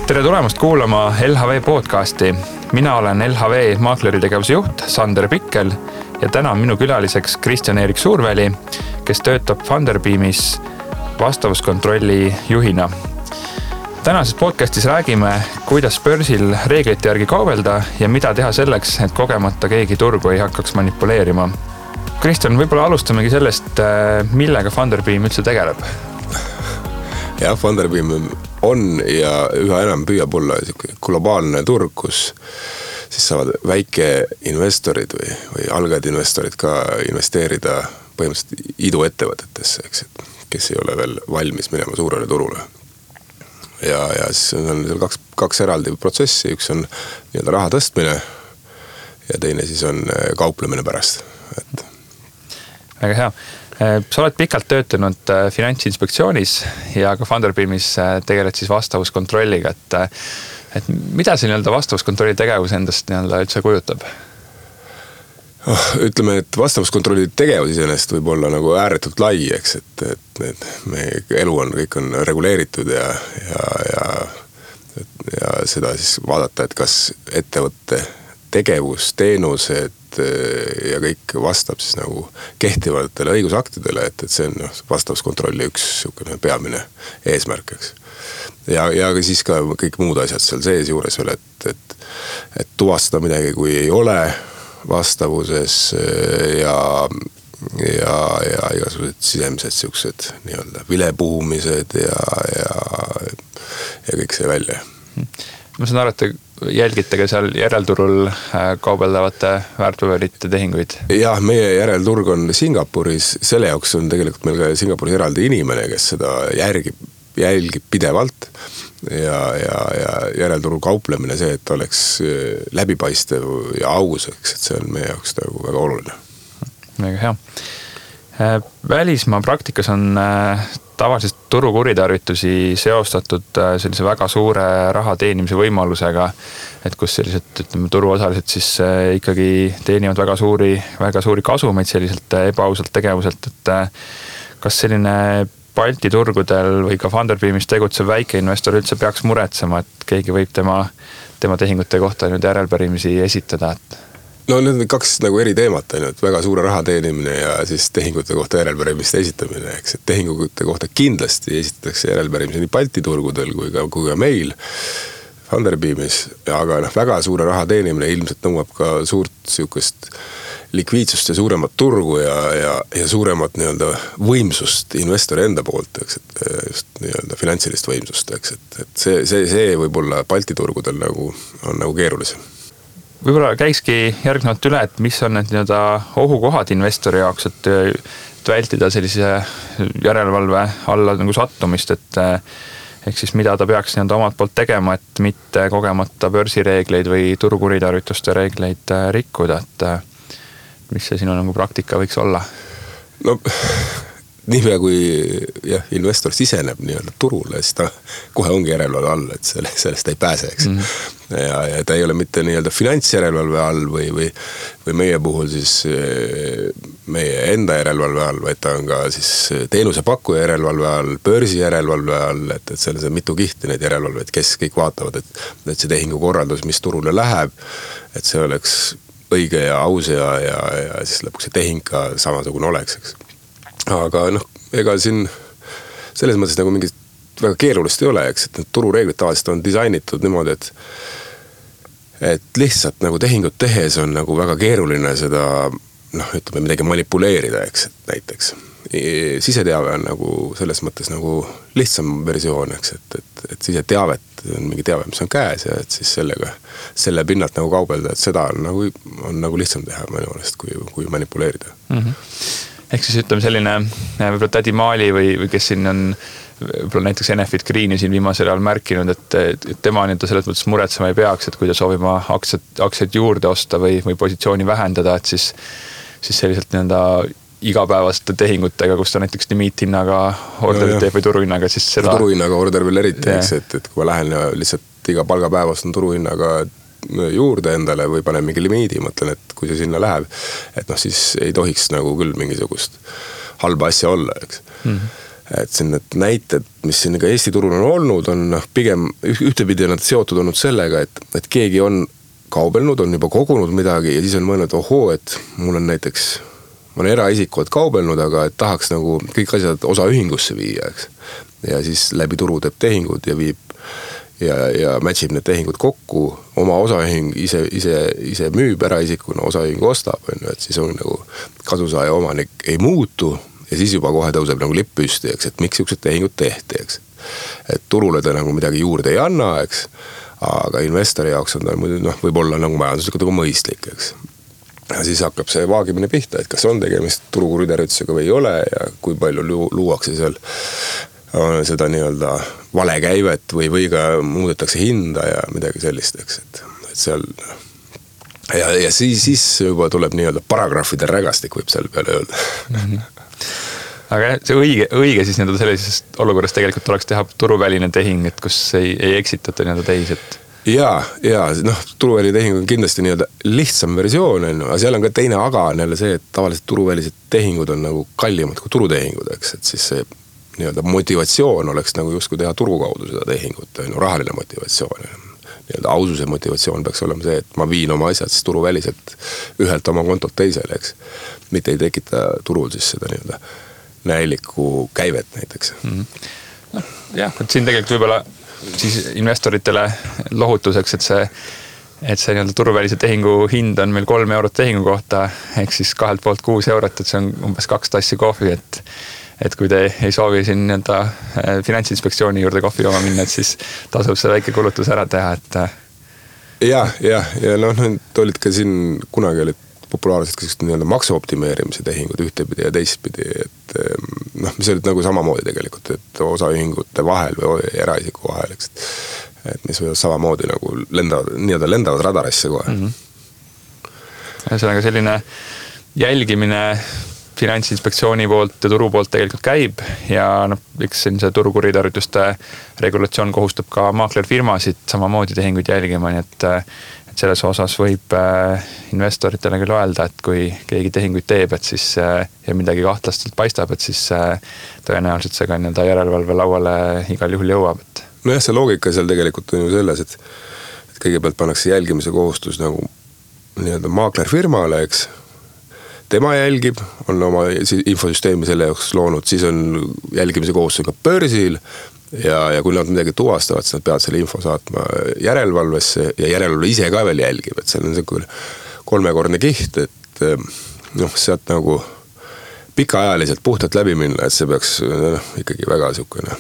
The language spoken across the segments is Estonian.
Tere tulemast kuulama LHV podcasti. Mina olen LHV maakleri tegevuse juht Sander Pikkel ja täna on minu külaliseks Kristjan-Erik Suurväli, kes töötab Funderbeamis vastavuskontrolli juhina. Tänases podcastis räägime, kuidas börsil reeglite järgi kaubelda ja mida teha selleks, et kogemata keegi turgu ei hakkaks manipuleerima. Kristjan, võib-olla alustamegi sellest, millega Funderbeam üldse tegeleb. Ja, Funderbeam on ja üha enam püüab olla globaalne turg, kus siis saavad väikeinvestorid või algajad investorid ka investeerida põhimõtteliselt iduettevõtetesse, kes ei ole veel valmis minema suurele turule. Ja siis on seal kaks eraldi protsessi, üks on nii-öelda raha tõstmine ja teine siis on kauplemine pärast. Väga hea. Sa oled pikalt töötanud Finantsinspektsioonis ja ka Funderbeamis tegeled siis vastavuskontrolliga. Et mida see nii-öelda vastavuskontrolli tegevus endast nii-öelda üldse kujutab? Ütleme, et vastavuskontrolli tegevus iseenesest võib olla nagu ääretult lai, eks, et meie elu kõik on reguleeritud ja seda siis vaadata, et kas ettevõtte tegevus, teenused ja kõik vastab siis nagu kehtivatele õigusaktidele, et see on vastavuskontrolli üks peamine eesmärk, eks. Ja siis ka kõik muud asjad seal sees juures veel, et tuvastada midagi, kui ei ole vastavuses ja igasugused sisemised siuksed nii-öelda vilepuhumised ja kõik see välja. Ma saan aru, et te jälgite ka seal järelturul kaubeldavate väärtpaberite tehinguid? Jah, meie järelturg on Singapuris. Selle jaoks on tegelikult meil ka Singapuris eraldi inimene, kes seda jälgib pidevalt ja järelturul kauplemine see, et oleks läbipaistev ja aus, et see on meie jaoks väga oluline. Väga hea. Välismaa praktikas on tavaliselt turu kuritarvitusi seostatud sellise väga suure raha teenimise võimalusega, et kus sellised turuosalised siis ikkagi teenivad väga suuri kasumeid selliselt ebaausalt tegevuselt, et kas selline Balti turgudel või ka Funderbeamis tegutsev väikeinvestor üldse peaks muretsema, et keegi võib tema tehingute kohta nüüd järelpärimisi esitada? No need on kaks nagu eri teemat, et väga suure raha teenimine ja siis tehingute kohta järelpärimiste esitamine, eks, et tehingute kohta kindlasti esitatakse järelpärimisi nii Balti turgudel kui ka meil Funderbeamis, aga väga suure raha teenimine ilmselt nõuab ka suurt siukest likviidsust ja suuremat turgu ja suuremat nii-öelda võimsust investori enda poolt, eks, et just nii-öelda finantsilist võimsust, eks, et see võib-olla Balti turgudel on nagu keerulisem. Võib-olla käikski järgnevalt üle, et mis on need nii-öelda ohukohad investori jaoks, et vältida sellise järelevalve alla nagu sattumist, et ehk siis mida ta peaks nii-öelda omalt poolt tegema, et mitte kogemata börsireegleid või turukuritarvituste reegleid rikkuda, et mis see sinu nagu praktika võiks olla? No niipea kui investor siseneb nii-öelda turule, siis ta kohe ongi järelevalve all, et sellest ei pääse, eks. Ja ta ei ole mitte nii-öelda finantsjärelevalve all või meie puhul siis meie enda järelevalve all, vaid ta on ka siis teenusepakkuja järelevalve all, börsi järelevalve all, et seal on mitu kihti neid järelevalveid, kes kõik vaatavad, et see tehingu korraldus, mis turule läheb, et see oleks õige ja aus ja siis lõpuks see tehing ka samasugune oleks, eks. Aga ega siin selles mõttes nagu mingit väga keerulist ei ole, eks, et need turureeglid tavaliselt on disainitud niimoodi, et lihtsalt nagu tehingut tehes on nagu väga keeruline seda, ütleme midagi manipuleerida, eks, et näiteks. Siseteave on nagu selles mõttes nagu lihtsam versioon, eks, et siseteavet on mingi teave, mis on käes ja et siis selle pinnalt nagu kaubelda, et seda on nagu lihtsam teha minu meelest, kui manipuleerida. Ehk siis ütleme selline võib-olla Tädi Maali või kes siin on võib-olla näiteks Enefit Greeni siin viimasel ajal märkinud, et tema nii-öelda selles mõttes muretsema ei peaks, et kui ta soovib aktsiaid juurde osta või positsiooni vähendada, et siis selliselt nii-öelda igapäevaste tehingutega, kus ta näiteks limiithinnaga orderit teeb või turuhinnaga, siis seda... Turuhinnaga order veel eriti, et kui ma lähen ja lihtsalt iga palgapäevast on turuhinnaga juurde endale või panen mingi limiidi, mõtlen, et kui see sinna läheb, et siis ei tohiks nagu küll mingisugust halba asja olla, eks. et siin need näited, mis siin ka Eesti turul on olnud, on pigem ühtepidi on nad seotud olnud sellega, et keegi on kaubelnud, on juba kogunud midagi ja siis on mõelnud, ohoo, et mul on näiteks, ma olen eraisiku, et kaubelnud, aga et tahaks nagu kõik asjad osaühingusse viia, eks. Ja siis läbi turu teeb tehingud ja viib ja matchib need tehingud kokku, oma osaühing ise müüb eraisikuna, osaühing ostab, et siis on nagu kasusaaja omanik ei muutu ja siis juba kohe tõuseb nagu lipp püsti, eks, et miks siuksed tehingud tehti, eks. Et turule ta nagu midagi juurde ei anna, eks, aga investori jaoks on ta võib-olla nagu majanduslikult nagu mõistlik, eks. Ja siis hakkab see vaagimine pihta, et kas on tegemist turukuritarvitusega või ei ole ja kui palju luuakse seal seda nii-öelda valekäivet või ka muudetakse hinda ja midagi sellist, eks, et seal ja siis juba tuleb nii-öelda paragrahvide rägastik, võib seal peale öelda. Aga see õige siis nii-öelda sellises olukorras tegelikult oleks teha turuväline tehing, et kus ei eksitata nii-öelda teisi, et ja turuväline tehing on kindlasti nii-öelda lihtsam versioon, aga seal on ka teine aga on jälle see, et tavaliselt turuvälised tehingud on nagu kallimad kui turutehingud, eks, et siis see nii-öelda motivatsioon oleks nagu justkui teha turu kaudu seda tehingut, rahaline motivatsioon. Nii-öelda aususe motivatsioon peaks olema see, et ma viin oma asjad siis turuväliselt ühelt oma kontolt teisele, eks. Mitte ei tekita turul siis seda nii-öelda näilikku käivet näiteks. Jah, et siin tegelikult võib-olla siis investoritele lohutuseks, et see nii-öelda turuvälise tehingu hind on meil 3 eurot tehingu kohta, ehk siis 2 poolt 6 eurot, et see on umbes 2 tassi kohvi, et kui te ei soovi siin nii-öelda Finantsinspektsiooni juurde kohvi jooma minna, et siis tasub see väike kulutus ära teha, et ja olid ka siin kunagi olid populaarsed nii-öelda maksuoptimeerimise tehingud ühtepidi ja teistpidi, et mis olid nagu samamoodi tegelikult, et osaühingute vahel või eraisiku vahel, eks, et mis võivad samamoodi nagu lendavad radarisse kohe. Ühesõnaga selline jälgimine Finantsinspektsiooni poolt ja turu poolt tegelikult käib ja eks siin see turukuritarvituste regulatsioon kohustab ka maaklerfirmasid samamoodi tehinguid jälgima, nii et selles osas võib investoritele küll öelda, et kui keegi tehinguid teeb, et siis ja midagi kahtlastelt paistab, et siis tõenäoliselt see ka nii-öelda järelevalve lauale igal juhul jõuab. Nojah, see loogika seal tegelikult on ju selles, et kõigepealt pannakse jälgimise kohustus nagu nii-öelda maaklerfirmale, eks. Tema jälgib, on oma infosüsteemi selle jaoks loonud, siis on jälgimise kohustus ka börsil ja kui nad midagi tuvastavad, siis nad peavad selle info saatma järelevalvesse ja järelevalve ise ka veel jälgib, et see on see 3-kordne kiht, et sealt nagu pikaajaliselt puhtalt läbi minna, et see peaks ikkagi väga niisugune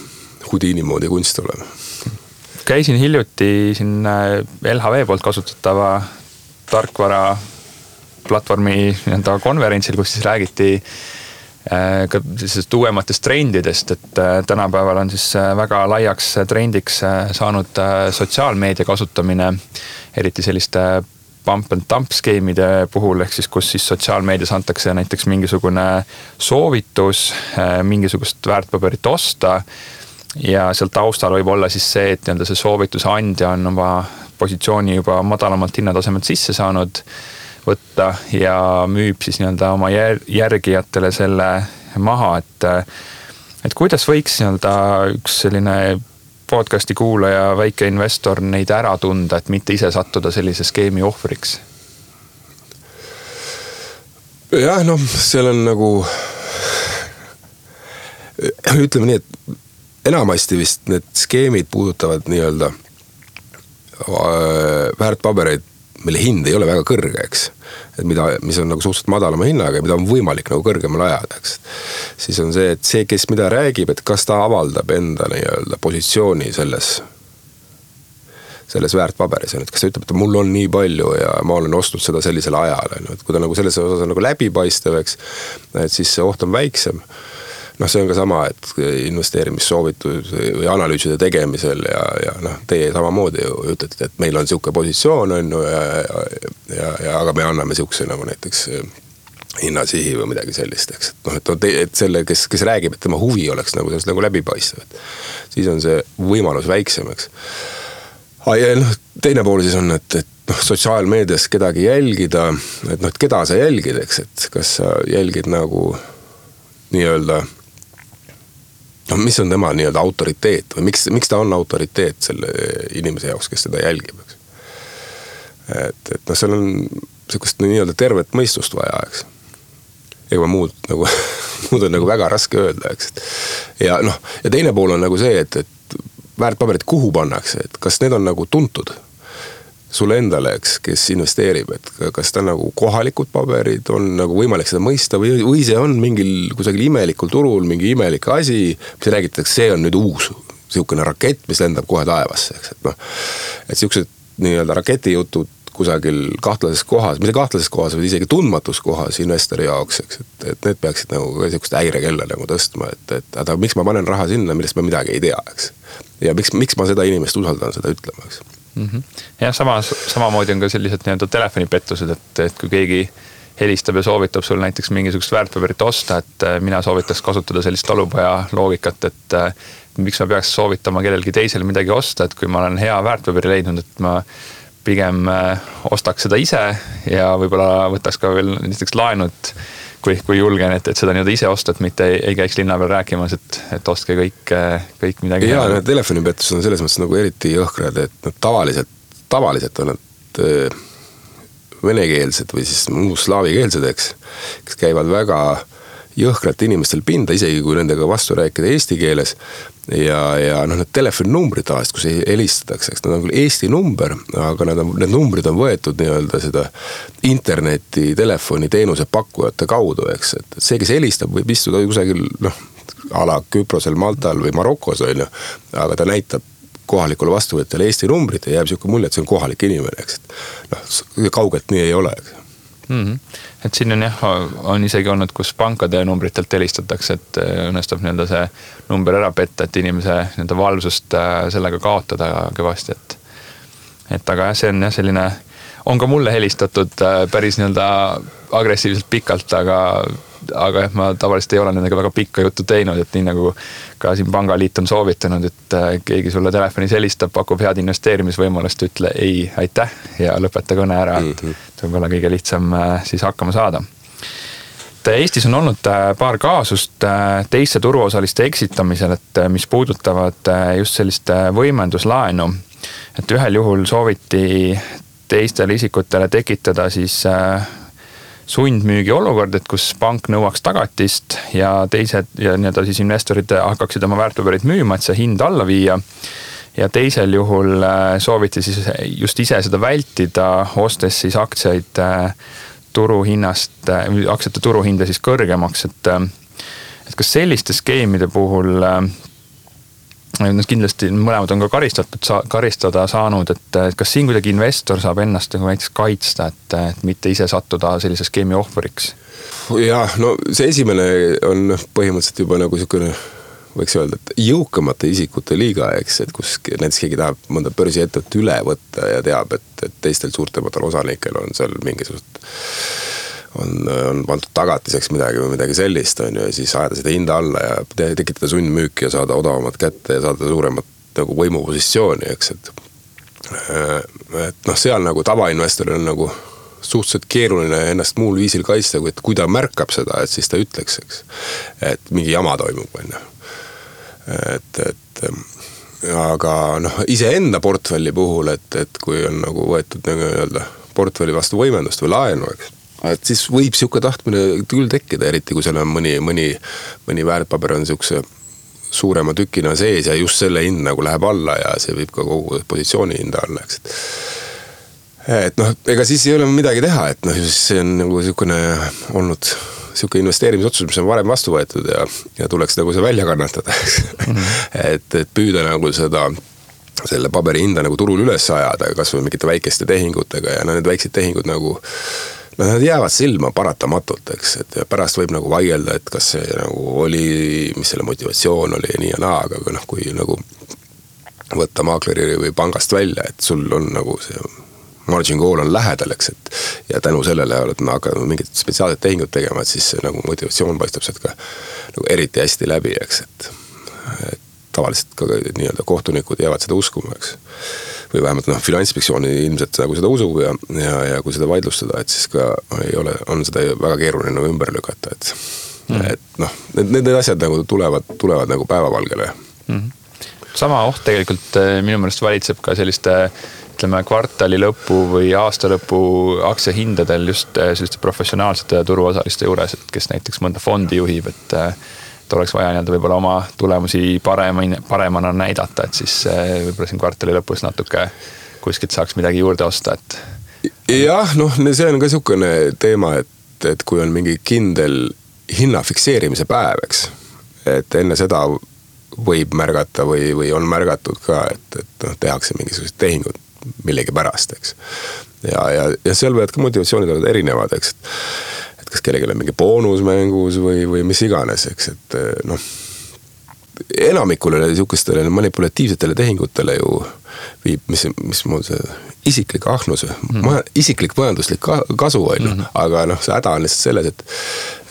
Houdini moodi kunst olema. Käisin hiljuti siin LHV poolt kasutatava tarkvara platvormi konverentsil, kus siis räägiti ka sellisest uuematest trendidest, et tänapäeval on siis väga laiaks trendiks saanud sotsiaalmeedia kasutamine, eriti selliste pump and dump skeemide puhul, ehk siis kus siis sotsiaalmeedias antakse näiteks mingisugune soovitus mingisugust väärtpaberit osta ja seal taustal võib olla siis see, et see soovituse andja on oma positsiooni juba madalamalt hinnatasemelt sisse saanud võtta ja müüb siis nii-öelda oma järgijatele selle maha, et kuidas võiks nii-öelda üks selline podcasti kuulaja, väike investor neid ära tunda, et mitte ise sattuda sellise skeemi ohvriks? Jah, seal on nagu ütleme nii, et enamasti vist need skeemid puudutavad nii-öelda väärtpabereid, mille hind ei ole väga kõrge, eks. Et mis on nagu suhteliselt madalama hinnaga ja mida on võimalik nagu kõrgemale ajada, eks. Siis on see, et see, kes mida räägib, et kas ta avaldab enda nii-öelda positsiooni selles väärtpaberis, et kas ta ütleb, et mul on nii palju ja ma olen ostnud seda sellisel ajal, et kui ta nagu selles osas on nagu läbipaistev, eks, et siis see oht on väiksem. See on ka sama, et investeerimissoovitud või analüüside tegemisel ja teie samamoodi ütlete, et meil on siuke positsioon on aga me anname siukse nagu näiteks hinnasihi või midagi sellist, eks. Et selle, kes räägib, et tema huvi oleks nagu sellest nagu läbipaistev, et siis on see võimalus väiksem, eks. Ja teine pool siis on, et sotsiaalmeedias kedagi jälgida, et keda sa jälgid, eks, et kas sa jälgid nagu nii-öelda no mis on tema nii-öelda autoriteet või miks ta on autoriteet selle inimese jaoks, kes seda jälgib, eks. Et noh, seal on sellist nii-öelda tervet mõistust vaja, eks. Ega muud on nagu väga raske öelda, eks. Ja noh, ja teine pool on nagu see, et väärtpaberid kuhu pannakse, et kas need on nagu tuntud sulle endale, eks, kes investeerib, et kas ta nagu kohalikud paberid on nagu võimalik seda mõista või see on mingil kusagil imelikul turul mingi imelik asi, mis räägitakse, see on nüüd uus siukene rakett, mis lendab kohe taevasse, eks, et noh, et siuksed nii-öelda raketijutud kusagil kahtlases kohas, mitte kahtlases kohas, vaid isegi tundmatus kohas investori jaoks, eks, et need peaksid nagu siukest häirekella nagu tõstma, et miks ma panen raha sinna, millest ma midagi ei tea, eks. Ja miks ma seda inimest usaldan seda ütlema, eks. Ja samamoodi on ka sellised nii-öelda telefonipettused, et kui keegi helistab ja soovitab sul näiteks mingisugust väärtpaberit osta, et mina soovitaks kasutada sellist talupoja loogikat, et miks ma peaks soovitama kellelgi teisel midagi osta, et kui ma olen hea väärtpaberi leidnud, et ma pigem ostaks seda ise ja võib-olla võtaks ka veel näiteks laenud, kui julgen, et seda nii-öelda ise osta, et mitte ei käiks linna peal rääkimas, et ostke kõik midagi. Ja need telefonipettused on selles mõttes nagu eriti jõhkrad, et nad tavaliselt on nad venekeelsed või siis muus slaavikeelsed, eks, kes käivad väga jõhkralt inimestel pinda, isegi kui nendega vastu rääkida eesti keeles. Ja noh, need telefoninumbrid tavaliselt, kus helistatakse, eks nad on küll Eesti number, aga need numbrid on võetud nii-öelda seda interneti telefoniteenuse pakkujate kaudu, eks, et see, kes helistab, võib istuda kusagil, noh, ala Küprosel, Maltal või Marokos, on ju, aga ta näitab kohalikule vastuvõtjale Eesti numbrit ja jääb siuke mulje, et see on kohalik inimene, eks, et noh, kaugelt nii ei ole, eks. Et siin on isegi olnud, kus pankade numbritelt helistatakse, et õnnestab nii-öelda see number ära petta, et inimese nii-öelda valvsust sellega kaotada kõvasti, et aga see on selline, on ka mulle helistatud päris nii-öelda agressiivselt pikalt, aga ma tavaliselt ei ole nendega väga pikka juttu teinud, et nii nagu ka siin Pangaliit on soovitanud, et keegi sulle telefonis helistab, pakub head investeerimisvõimalust, ütle ei, aitäh ja lõpeta kõne ära, et võib-olla kõige lihtsam siis hakkama saada. Eestis on olnud paar kaasust teiste turuosaliste eksitamisel, et mis puudutavad just sellist võimenduslaenu, et ühel juhul sooviti teistele isikutele tekitada siis sundmüügi olukord, et kus pank nõuaks tagatist ja teised ja nii-öelda siis investorid hakkaksid oma väärtpaberid müüma, et see hind alla viia. Ja teisel juhul sooviti siis just ise seda vältida, ostes siis aktsiaid turuhinnast, aktsiate turuhinda siis kõrgemaks, et kas selliste skeemide puhul kindlasti mõlemad on ka karistada saanud, et kas siin kuidagi investor saab ennast näiteks kaitsta, et mitte ise sattuda sellise skeemi ohvriks? Ja, no see esimene on põhimõtteliselt juba nagu niisugune, võiks öelda, et jõukamate isikute liiga, eks, et kus näiteks keegi tahab mõnda börsiettevõtet üle võtta ja teab, et teistel suurtematel osanikel on seal mingisugust on pandud tagatiseks midagi sellist, on ju, ja siis ajada seda hinda alla ja tekitada sundmüüki ja saada odavamat kätte ja saada suuremat nagu võimupositsiooni, eks, et noh, seal nagu tavainvestoril on nagu suhteliselt keeruline ennast muul viisil kaitsta, kui ta märkab seda, et siis ta ütleks, eks, et mingi jama toimub, on ju. Aga noh, iseenda portfelli puhul, et kui on nagu võetud nii-öelda portfelli vastu võimendust või laenu, eks, et siis võib siuke tahtmine küll tekkida, eriti kui seal on mõni väärtpaber on siukse suurema tükina sees ja just selle hind nagu läheb alla ja see võib ka kogu positsiooni hinda alla, eks. Et noh, ega siis ei ole midagi teha, et noh, see on nagu siukene olnud siuke investeerimisotsus, mis on varem vastu võetud ja tuleks nagu see välja kannatada, et püüda nagu selle paberi hinda nagu turul üles ajada, kas või mingite väikeste tehingutega ja need väiksed tehingud nagu nad jäävad silma paratamatult, eks, et pärast võib nagu vaielda, et kas see nagu oli, mis selle motivatsioon oli ja nii ja naa, aga noh, kui nagu võtta maakleri või pangast välja, et sul on nagu see margin call on lähedal, eks, et ja tänu sellele oled hakanud mingit spetsiaalset tehingut tegema, et siis see nagu motivatsioon paistab sealt ka nagu eriti hästi läbi, eks, et tavaliselt ka nii-öelda kohtunikud jäävad seda uskuma, eks. Või vähemalt noh, Finantsinspektsiooni ilmselt nagu seda usub ja kui seda vaidlustada, et siis ka on seda väga keeruline ümber lükata, Et noh, need asjad nagu tulevad nagu päevavalgele. Sama oht tegelikult minu meelest valitseb ka selliste, ütleme, kvartali lõpu või aasta lõpu aktsiahindadel just selliste professionaalsete turuosaliste juures, et kes näiteks mõnda fondi juhib, et oleks vaja nii-öelda võib-olla oma tulemusi paremana näidata, et siis võib-olla siin kvartali lõpus natuke kuskilt saaks midagi juurde osta, et jah, noh, see on ka niisugune teema, et kui on mingi kindel hinna fikseerimise päev, eks, et enne seda võib märgata või on märgatud ka, et noh, tehakse mingisugused tehingud millegi pärast, eks. Ja seal võivad ka motivatsioonid olla erinevad, eks, et kas kellelgi on mingi boonus mängus või mis iganes, eks, et noh, enamikule niisugustele manipulatiivsetele tehingutele ju viib, mis mul see isiklik ahnus, isiklik majanduslik kasu on, aga noh, see häda on lihtsalt selles,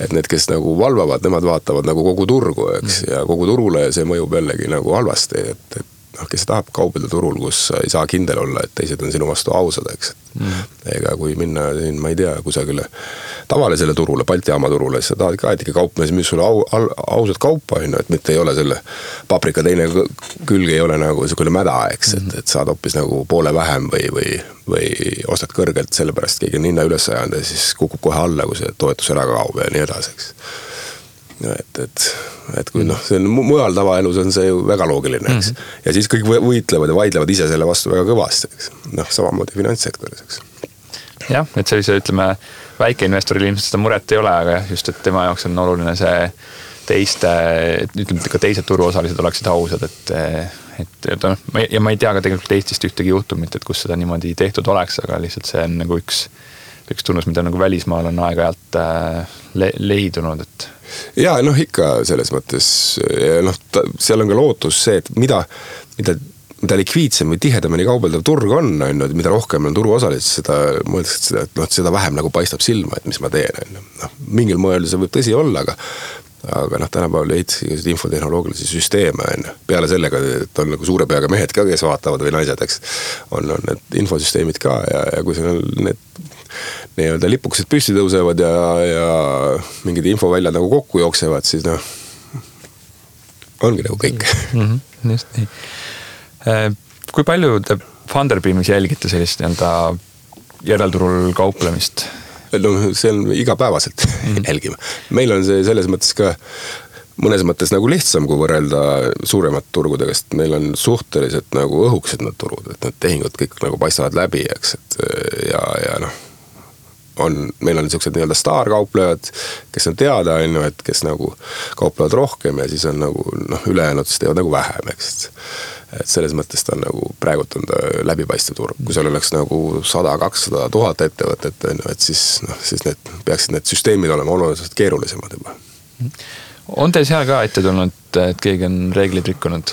et need, kes nagu valvavad, nemad vaatavad nagu kogu turgu, eks, ja kogu turule see mõjub jällegi nagu halvasti, et noh, kes tahab kaubelda turul, kus ei saa kindel olla, et teised on sinu vastu ausad, eks. Ega kui minna siin, ma ei tea, kusagile tavalisele turule, Balti jaama turule, siis sa tahad ka, et ikka kaupmees müüs sulle ausad kaupa, et mitte ei ole selle paprika teine külg ei ole nagu niisugune mäda, eks, et saad hoopis nagu poole vähem või ostad kõrgelt, sellepärast keegi on hinna üles ajanud ja siis kukub kohe alla, kui see toetus ära kaob ja nii edasi, eks. Et kui noh, see on mujal tavaelus on see ju väga loogiline, eks. Ja siis kõik võitlevad ja vaidlevad ise selle vastu väga kõvasti, eks. Noh, samamoodi finantssektoris, eks. Jah, et sellise, ütleme, väikeinvestoril ilmselt seda muret ei ole, aga just, et tema jaoks on oluline see ütleme, ka teised turuosalised oleksid ausad, et ja ma ei tea ka tegelikult Eestist ühtegi juhtumit, et kus seda niimoodi tehtud oleks, aga lihtsalt see on nagu üks tunnus, mida nagu välismaal on aeg-ajalt leidunud, et ja noh, ikka selles mõttes, noh, seal on ka lootus see, et mida likviidsem või tihedamini kaubeldav turg on, mida rohkem on turuosalisi, seda mõeldakse, et noh, seda vähem nagu paistab silma, et mis ma teen. Noh, mingil moel see võib tõsi olla, aga noh, tänapäeval ehitasid infotehnoloogilisi süsteeme, peale sellega, et on nagu suure peaga mehed ka, kes vaatavad või naised, eks, on need infosüsteemid ka ja kui seal need nii-öelda lipukesed püsti tõusevad ja mingid infoväljad nagu kokku jooksevad, siis noh, ongi nagu kõik. Just nii. Kui palju te Funderbeamis jälgite sellist nii-öelda järelturul kauplemist? No see on igapäevaselt jälgima. Meil on see selles mõttes ka mõnes mõttes nagu lihtsam, kui võrrelda suuremat turgudega, sest meil on suhteliselt nagu õhukesed need turud, et need tehingud kõik nagu paistavad läbi, eks, et ja noh, meil on niisugused nii-öelda staarkauplejad, kes on teada, et kes nagu kauplevad rohkem ja siis on nagu noh, ülejäänud siis teevad nagu vähem, eks. Et selles mõttes ta on nagu praegult on ta läbipaistev turg. Kui seal oleks nagu 100-200 000 ettevõtet, et siis peaksid need süsteemid olema oluliselt keerulisemad juba. On teil seal ka ette tulnud, et keegi on reeglid rikkunud?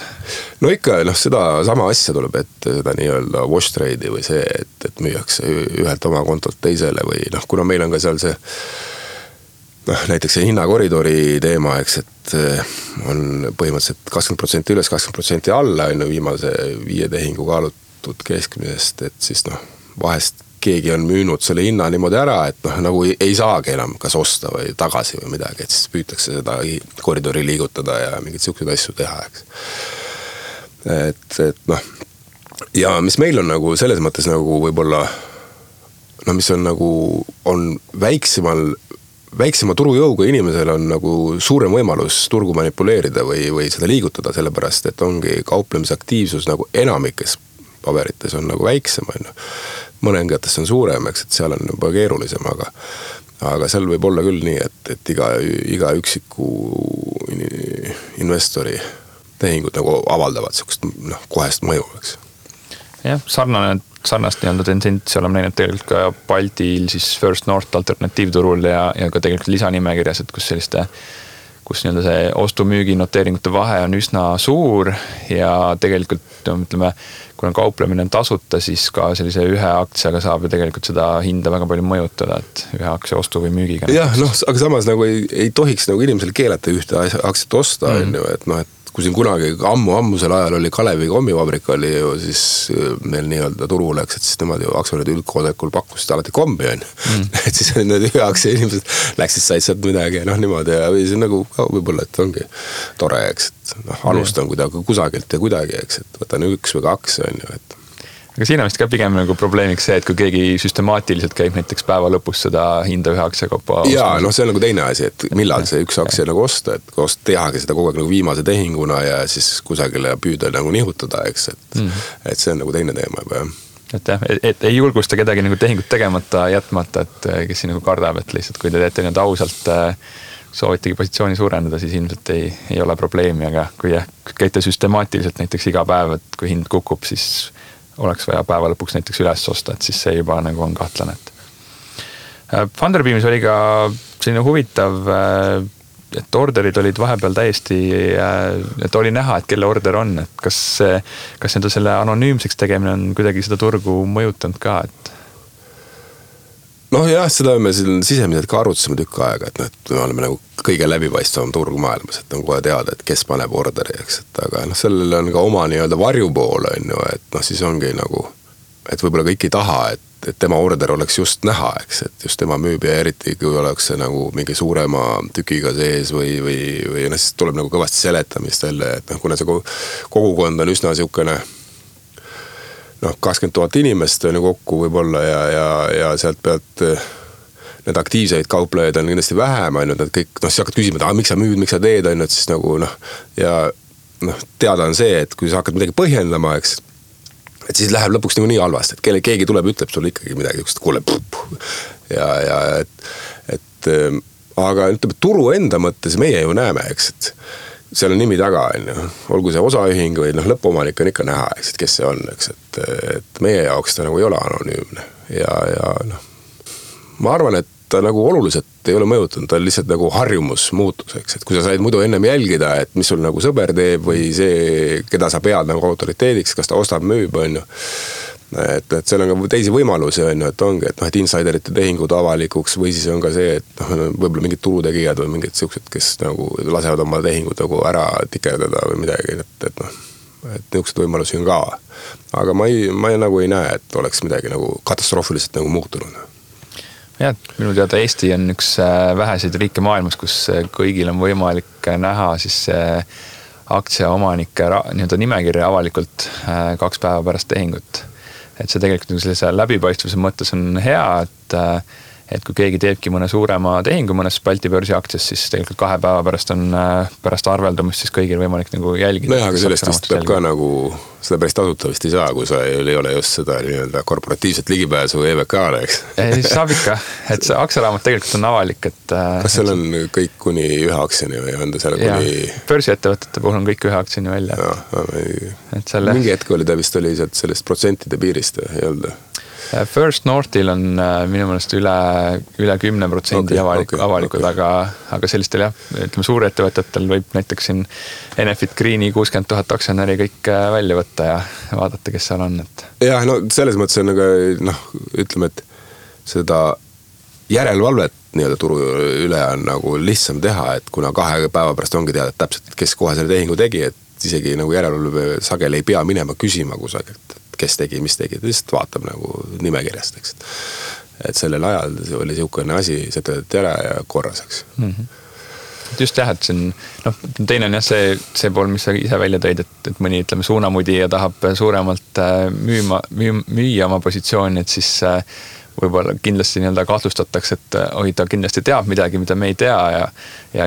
No ikka, noh, seda sama asja tuleb ette, seda nii-öelda wash trade'i või see, et müüakse ühelt oma kontolt teisele või noh, kuna meil on ka seal see noh, näiteks see hinnakoridori teema, eks, et on põhimõtteliselt 20% üles, 20% alla viimase 5 tehingu kaalutud keskmisest, et siis noh, vahest keegi on müünud selle hinna niimoodi ära, et noh, nagu ei saagi enam kas osta või tagasi või midagi, et siis püütakse seda koridori liigutada ja mingeid siukseid asju teha, eks. Et noh, ja mis meil on nagu selles mõttes nagu võib-olla no mis on nagu, on väiksema turujõuga inimesel on nagu suurem võimalus turgu manipuleerida või seda liigutada, sellepärast et ongi kauplemisaktiivsus nagu enamikes paberites on nagu väiksem, mõningates on suurem, eks, et seal on juba keerulisem, aga seal võib olla küll nii, et iga üksiku investori tehingud nagu avaldavad sellist kohest mõju, eks. Jah, sarnast nii-öelda tendentsi oleme näinud tegelikult ka Baltil siis First North alternatiivturul ja ka tegelikult lisanimekirjas, et kus nii-öelda see ostu-müügi noteeringute vahe on üsna suur ja tegelikult ütleme, kui on kauplemine tasuta, siis ka sellise ühe aktsiaga saab ju tegelikult seda hinda väga palju mõjutada, et ühe aktsia ostu või müügiga. Jah, noh, aga samas nagu ei tohiks nagu inimesel keelata ühte aktsiat osta, et noh, et kui siin kunagi ammusel ajal oli Kalevi kommivabrik oli ju, siis meil nii-öelda turu läks, et siis nemad ju aktsionäride üldkoosolekul pakkusid alati kombi on. Et siis need ühe aktsia inimesed läksid, said sealt midagi, niimoodi ja või see nagu võib-olla, et ongi tore, eks, et alustan kuidagi kusagilt ja kuidagi, eks, et võtan 1 või 2 on ju, et aga siin on vist ka pigem nagu probleemiks see, et kui keegi süstemaatiliselt käib näiteks päeva lõpus seda hinda ühe aktsiakopa jaa, see on nagu teine asi, et millal see üks aktsia nagu osta, et tehagi seda kogu aeg nagu viimase tehinguna ja siis kusagile püüda nagu nihutada, eks, et see on nagu teine teema juba, jah. Et jah, et ei julgusta kedagi nagu tehingut tegemata jätmata, et kes siin nagu kardab, et lihtsalt kui te teete nüüd ausalt soovitegi positsiooni suurendada, siis ilmselt ei ole probleemi, aga kui käite süstemaatiliselt näiteks iga päev, et kui hind kukub, siis oleks vaja päeva lõpuks näiteks üles osta, et siis see juba nagu on kahtlane. Funderbeamis oli ka selline huvitav, et orderid olid vahepeal täiesti, et oli näha, et kelle order on, et kas selle anonüümseks tegemine on kuidagi seda turgu mõjutanud ka, et jah, seda me siin sisemiselt ka arutasime tükk aega, et me oleme nagu kõige läbipaistvam turg maailmas, et on kohe teada, et kes paneb orderi, eks, et aga sellel on ka oma nii-öelda varjupool, on ju, et siis ongi nagu, et võib-olla kõik ei taha, et tema order oleks just näha, eks, et just tema müüb ja eriti, kui oleks see nagu mingi suurema tükiga sees või siis tuleb nagu kõvasti seletamist jälle, et kuna see kogukond on üsna siukene 20 000 inimest on ju kokku võib-olla ja sealt pealt need aktiivseid kauplejaid on kindlasti vähem, on ju, nad kõik, siis hakkad küsima, et miks sa müüd, miks sa teed, on ju, et siis nagu teada on see, et kui sa hakkad midagi põhjendama, eks, et siis läheb lõpuks nii halvasti, et keegi tuleb, ütleb sulle ikkagi midagi, kuule, aga ütleb, turu enda mõttes meie ju näeme, eks, et seal on nimi taga, olgu see osaühing või lõppomanik on ikka näha, eks, et kes see on, eks, et meie jaoks ta nagu ei ole anonüümne ja ma arvan, et ta nagu oluliselt ei ole mõjutanud, ta on lihtsalt nagu harjumus muutus, eks, et kui sa said muidu ennem jälgida, et mis sul nagu sõber teeb või see, keda sa pead nagu autoriteediks, kas ta ostab, müüb, on ju. Et seal on ka teisi võimalusi, on ju, et ongi, et insiderite tehingud avalikuks või siis on ka see, et võib-olla mingid turutegijad või mingid siuksed, kes nagu lasevad oma tehingud nagu ära tikerdada või midagi, et niisugused võimalusi on ka. Aga ma nagu ei näe, et oleks midagi nagu katastroofiliselt nagu muutunud. Jah, minu teada Eesti on üks väheseid riike maailmas, kus kõigil on võimalik näha siis aktsiaomanike nii-öelda nimekirja avalikult 2 päeva pärast tehingut. Et see tegelikult sellise läbipaistvuse mõttes on hea, et kui keegi teebki mõne suurema tehingu mõnes Balti börsi aktsias, siis tegelikult 2 päeva pärast on pärast arveldumist siis kõigil võimalik nagu jälgida. Aga sellest vist peab ka nagu, seda päris tasuta vist ei saa, kui sa ei ole just seda nii-öelda korporatiivset ligipääsu EVK-le, eks? Saab ikka, et see aktsiaraamat tegelikult on avalik, et kas seal on kõik kuni 1 aktsiani või on ta seal kuni börsiettevõtete puhul on kõik 1 aktsiani välja. Mingi hetk oli ta vist oli sellest protsentide piirist, ei olnud? First Northil on minu meelest üle 10% avalikud, aga sellistel ütleme suurettevõtetel võib näiteks siin Enefit Greeni 60 000 aktsionäri kõik välja võtta ja vaadata, kes seal on. Jah, selles mõttes on ütleme, et seda järelevalvet nii-öelda turu üle on nagu lihtsam teha, et kuna 2 päeva pärast ongi teada täpselt, kes kohe selle tehingu tegi, et isegi nagu järelevalve sageli ei pea minema küsima kusagilt, kes tegi, mis tegi, ta lihtsalt vaatab nagu nimekirjast, eks. Et sellel ajal oli siukene asi, see töötati ära ja korras, eks. Just jah, et siin, teine on jah see pool, mis sa ise välja tõid, et mõni, ütleme, suunamudija tahab suuremalt müüa oma positsiooni, et siis võib-olla kindlasti nii-öelda kahtlustatakse, et ta kindlasti teab midagi, mida me ei tea ja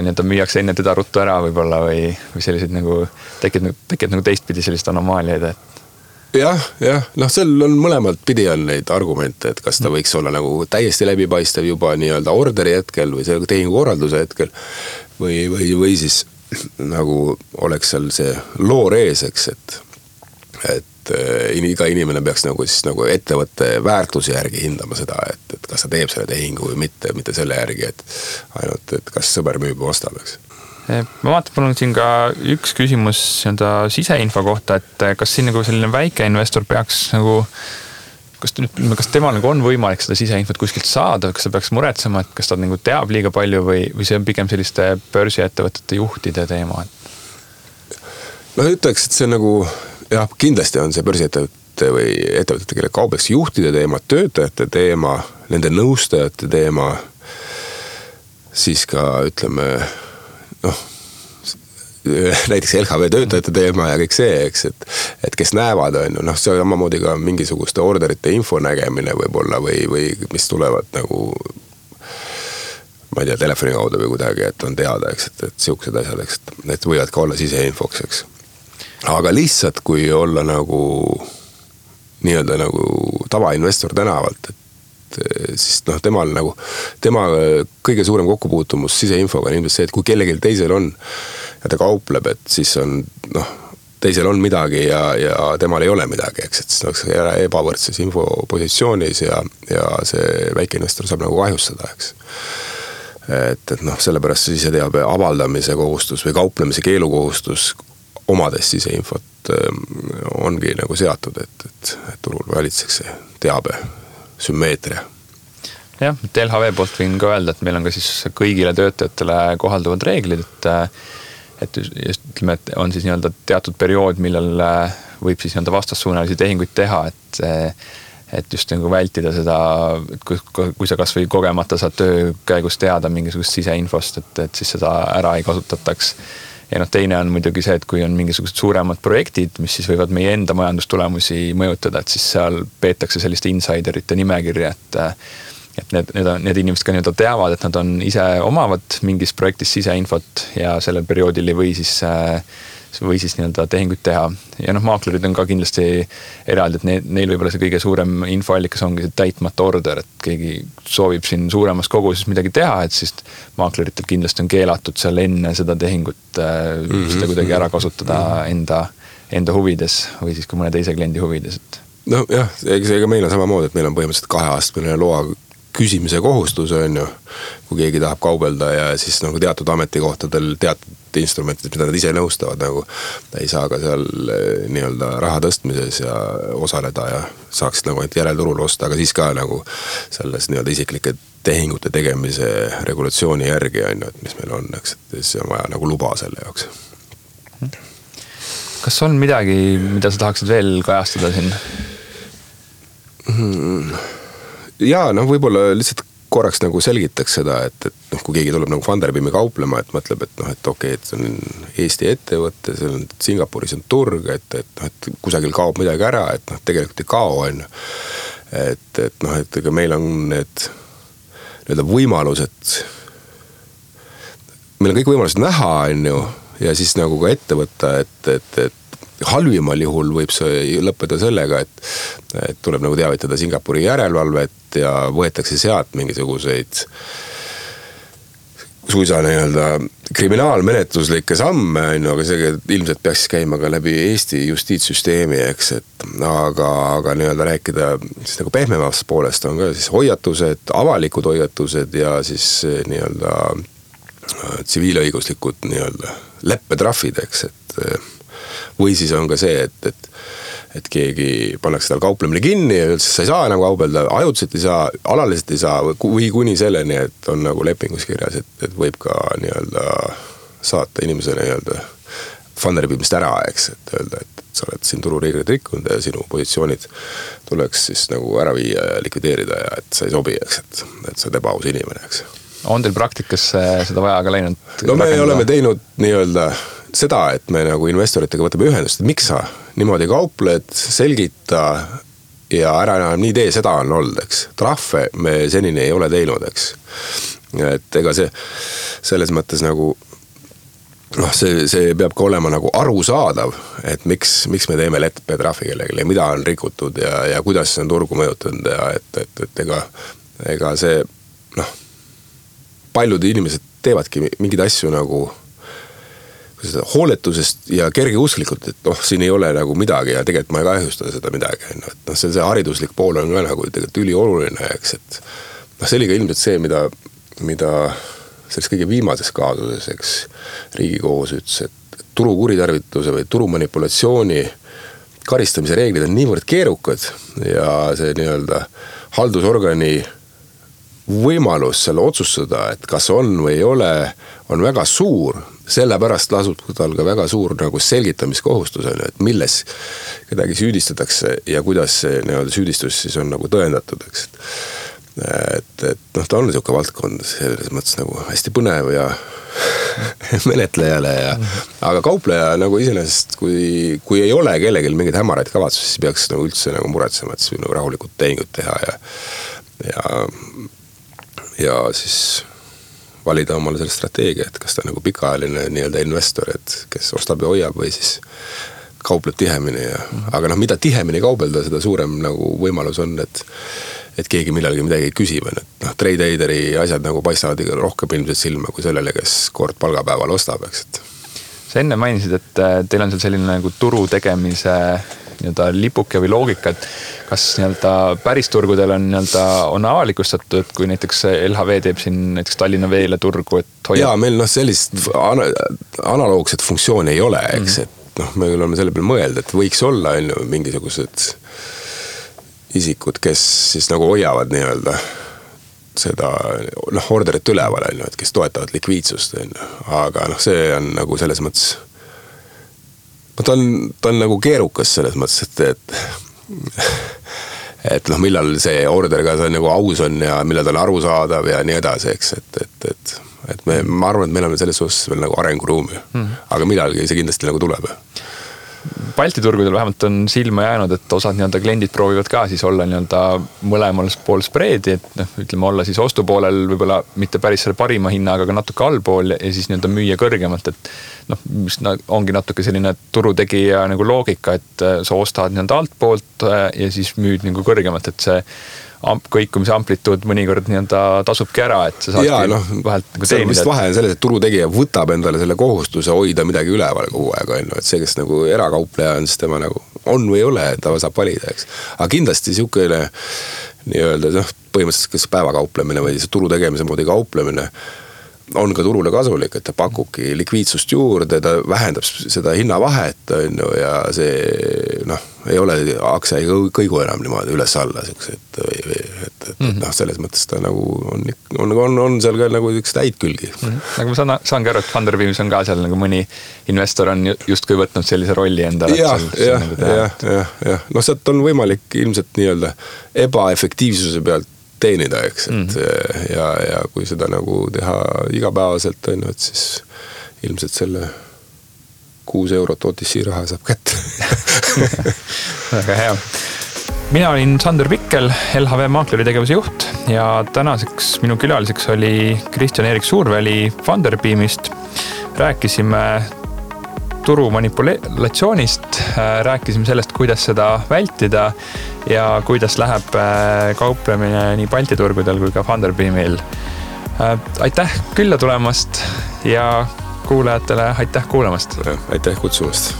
nii-öelda müüakse enne teda ruttu ära võib-olla või selliseid nagu tekib nagu teistpidi sellist anomaaliaid, et jah, seal on mõlemalt pidi on neid argumente, et kas ta võiks olla nagu täiesti läbipaistev juba nii-öelda orderi hetkel või see tehingukorralduse hetkel või siis nagu oleks seal see loor ees, eks, et iga inimene peaks nagu siis nagu ettevõtte väärtuse järgi hindama seda, et kas ta teeb selle tehingu või mitte selle järgi, et ainult, et kas sõber müüb või ostab, eks. Ma vaatan, mul on siin ka üks küsimus siseinfo kohta, et kas siin nagu selline väike investor peaks nagu, kas temal nagu on võimalik seda siseinfot kuskilt saada, kas ta peaks muretsema, et kas ta nagu teab liiga palju või see on pigem selliste börsiettevõtete juhtide teema? No ütleks, et see on nagu, jah, kindlasti on see börsiettevõtte või ettevõtete, kelle kaubeks juhtide teema, töötajate teema, nende nõustajate teema, siis ka ütleme, noh, näiteks LHV töötajate teema ja kõik see, eks, et kes näevad, on ju, noh, see on samamoodi ka mingisuguste orderite info nägemine võib-olla või mis tulevad nagu, ma ei tea, telefoni kaudu või kuidagi, et on teada, eks, et siuksed asjad, eks, et võivad ka olla siseinfoks, eks. Aga lihtsalt, kui olla nagu nii-öelda nagu tavainvestor tänavalt, et siis noh, tema kõige suurem kokkupuutumus siseinfoga on ilmselt see, et kui kellelgi teisel on ja ta kaupleb, et siis on, noh, teisel on midagi ja temal ei ole midagi, eks, et siis on ebavõrdses infopositsioonis ja see väikeinvestor saab nagu kahjustada, eks. Et noh, sellepärast see siseteabe avaldamise kohustus või kauplemise keelukohustus omades siseinfot ongi nagu seatud, et turul valitseks see teabe sümmeetria. Jah, et LHV poolt võin ka öelda, et meil on ka siis kõigile töötajatele kohalduvad reeglid, et just ütleme, et on siis nii-öelda teatud periood, millal võib siis nii-öelda vastassuunalisi tehinguid teha, et just nagu vältida seda, et kui sa kas või kogemata saad töö käigus teada mingisugust siseinfost, et siis seda ära ei kasutataks. Ja noh, teine on muidugi see, et kui on mingisugused suuremad projektid, mis siis võivad meie enda majandustulemusi mõjutada, et siis seal peetakse selliste insiderite nimekirja, et need inimesed ka nii-öelda teavad, et nad on ise omavad mingis projektis siseinfot ja sellel perioodil ei või siis nii-öelda tehinguid teha. Ja noh, maaklerid on ka kindlasti eraldi, et neil võib-olla see kõige suurem infoallikas ongi see täitmata order, et keegi soovib siin suuremas koguses midagi teha, et siis maakleritel kindlasti on keelatud seal enne seda tehingut seda kuidagi ära kasutada enda huvides või siis ka mõne teise kliendi huvides. No jah, ega meil on samamoodi, et meil on põhimõtteliselt 2-aastane loa küsimise kohustus on ju, kui keegi tahab kaubelda ja siis nagu teatud ametikohtadel teatud instrumentid, mida nad ise nõustavad, nagu ei saa ka seal nii-öelda raha tõstmises ja osaleda ja saaksid nagu järelturul osta, aga siis ka nagu selles nii-öelda isiklike tehingute tegemise regulatsiooni järgi on ju, et mis meil on, eks, et siis on vaja nagu luba selle jaoks. Kas on midagi, mida sa tahaksid veel kajastada siin? Jaa, noh, võib-olla lihtsalt korraks nagu selgitaks seda, et noh, kui keegi tuleb nagu Funderbeami kauplema, et mõtleb, et noh, et okei, et see on Eesti ettevõtte, see on Singapuris on turg, et kusagil kaob midagi ära, et noh, tegelikult ei kao, on ju. Et noh, et ega meil on need võimalused, meil on kõik võimalused näha, on ju, ja siis nagu ka ette võtta, et halvimal juhul võib see lõppeda sellega, et tuleb nagu teavitada Singapuri järelevalvet ja võetakse sealt mingisuguseid suisa nii-öelda kriminaalmenetluslikke samme, aga see ilmselt peaks käima ka läbi Eesti justiitssüsteemi, eks, et aga nii-öelda rääkida siis nagu pehmemast poolest on ka siis hoiatused, avalikud hoiatused ja siis nii-öelda tsiviilõiguslikud nii-öelda leppetrahvid, eks, et või siis on ka see, et keegi pannakse tal kauplemine kinni ja üldse sa ei saa enam kaubelda, ajutiselt ei saa, alaliselt ei saa või kuni selleni, et on nagu lepingus kirjas, et võib ka nii-öelda saata inimesele nii-öelda Funderbeamist ära, eks, et öelda, et sa oled siin turureegleid rikkunud ja sinu positsioonid tuleks siis nagu ära viia ja likvideerida ja et sa ei sobi, eks, et sa oled ebaaus inimene, eks. On teil praktikas seda vaja ka läinud? No me oleme teinud nii-öelda seda, et me nagu investoritega võtame ühendust, et miks sa niimoodi kaupled, selgita ja ära enam nii tee, seda on olnud, eks. Trahve me senini ei ole teinud, eks. Et ega see selles mõttes nagu noh, see peab ka olema nagu arusaadav, et miks me teeme leppetrahvi kellelegi ja mida on rikutud ja kuidas see on turgu mõjutanud ja et ega see noh, paljud inimesed teevadki mingeid asju nagu hooletusest ja kergeusklikult, et noh, siin ei ole nagu midagi ja tegelikult ma ei kahjusta seda midagi. Et noh, see hariduslik pool on ka nagu tegelikult ülioluline, eks, et noh, see oli ka ilmselt see, mida selles kõige viimases kaasuses, eks, Riigikohus ütles, et turu kuritarvituse või turu manipulatsiooni karistamise reeglid on niivõrd keerukad ja see nii-öelda haldusorgani võimalus selle otsustada, et kas on või ei ole, on väga suur, sellepärast lasub tal ka väga suur nagu selgitamiskohustus, et milles kedagi süüdistatakse ja kuidas see nii-öelda süüdistus siis on nagu tõendatud, eks. Et noh, ta on niisugune valdkond selles mõttes nagu hästi põnev ja menetlejale aga kaupleja nagu iseenesest, kui ei ole kellelgi mingeid hämaraid kavatsusi, siis peaks nagu üldse nagu muretsema, et siis nagu rahulikult tehingut teha ja siis valida omale selle strateegia, et kas ta nagu pikaajaline nii-öelda investor, et kes ostab ja hoiab või siis kaupleb tihemini aga noh, mida tihemini kaubelda, seda suurem nagu võimalus on, et keegi millalgi midagi küsib, et noh, trade-aideri asjad nagu paistavad rohkem ilmselt silma kui sellele, kes kord palgapäeval ostab, eks. Sa enne mainisid, et teil on seal selline nagu turu tegemise nii-öelda lipuke või loogika, et kas nii-öelda päris turgudel on nii-öelda on avalikustatud, et kui näiteks LHV teeb siin näiteks Tallinna Veele turgu, et hoiab... Jaa, meil noh, sellist analoogset funktsiooni ei ole, eks, et noh, me oleme selle peale mõelda, et võiks olla mingisugused isikud, kes siis nagu hoiavad nii-öelda seda noh, orderit üleval, et kes toetavad likviidsust, aga noh, see on nagu selles mõttes ta on nagu keerukas selles mõttes, et noh, millal see order ka nagu aus on ja millal ta on arusaadav ja nii edasi, eks, et ma arvan, et meil on selles osas veel nagu arenguruumi, aga millalgi see kindlasti nagu tuleb. Balti turgudel vähemalt on silma jäänud, et osad nii-öelda kliendid proovivad ka siis olla nii-öelda mõlemal pool spreedi, et noh, ütleme olla siis ostupoolel võib-olla mitte päris selle parima hinnaga, aga natuke allpool ja siis nii-öelda müüa kõrgemalt, et noh, mis ongi natuke selline turutegija nagu loogika, et sa ostad nii-öelda altpoolt ja siis müüd nagu kõrgemalt, et see kõikumise amplituud mõnikord nii-öelda tasubki ära, et sa saadki vahelt nagu teenida. Vist vahe on selles, et turutegija võtab endale selle kohustuse hoida midagi üleval kogu aeg, et see, kes nagu erakaupleja on, siis tema nagu on või ei ole, ta saab valida, eks. Aga kindlasti niisugune nii-öelda põhimõtteliselt kas päevakauplemine või turu tegemise moodi kauplemine on ka turule kasulik, et ta pakubki likviidsust juurde, ta vähendab seda hinnavahet ja see noh, ei ole aktsia ei kõigu enam niimoodi üles-alla et noh, selles mõttes ta nagu on seal ka nagu üks täid külgi. Aga ma saangi aru, et Funderbeamis on ka seal nagu mõni investor on justkui võtnud sellise rolli endale. Ja. No sealt on võimalik ilmselt nii-öelda ebaefektiivsuse pealt teenida, eks, et ja kui seda nagu teha igapäevaselt, et siis ilmselt selle 6 eurot OTC raha saab kätte. Väga hea. Mina olin Sander Pikkel, LHV Maakleri tegevuse juht ja tänaseks minu külaliseks oli Kristjan-Erik Suurväli Funderbeamist. Rääkisime turu manipulatsioonist, rääkisime sellest, kuidas seda vältida ja kuidas läheb kauplemine nii Balti turgudel kui ka Funderbeamil. Aitäh külla tulemast ja kuulajatele aitäh kuulamast. Aitäh kutsumast.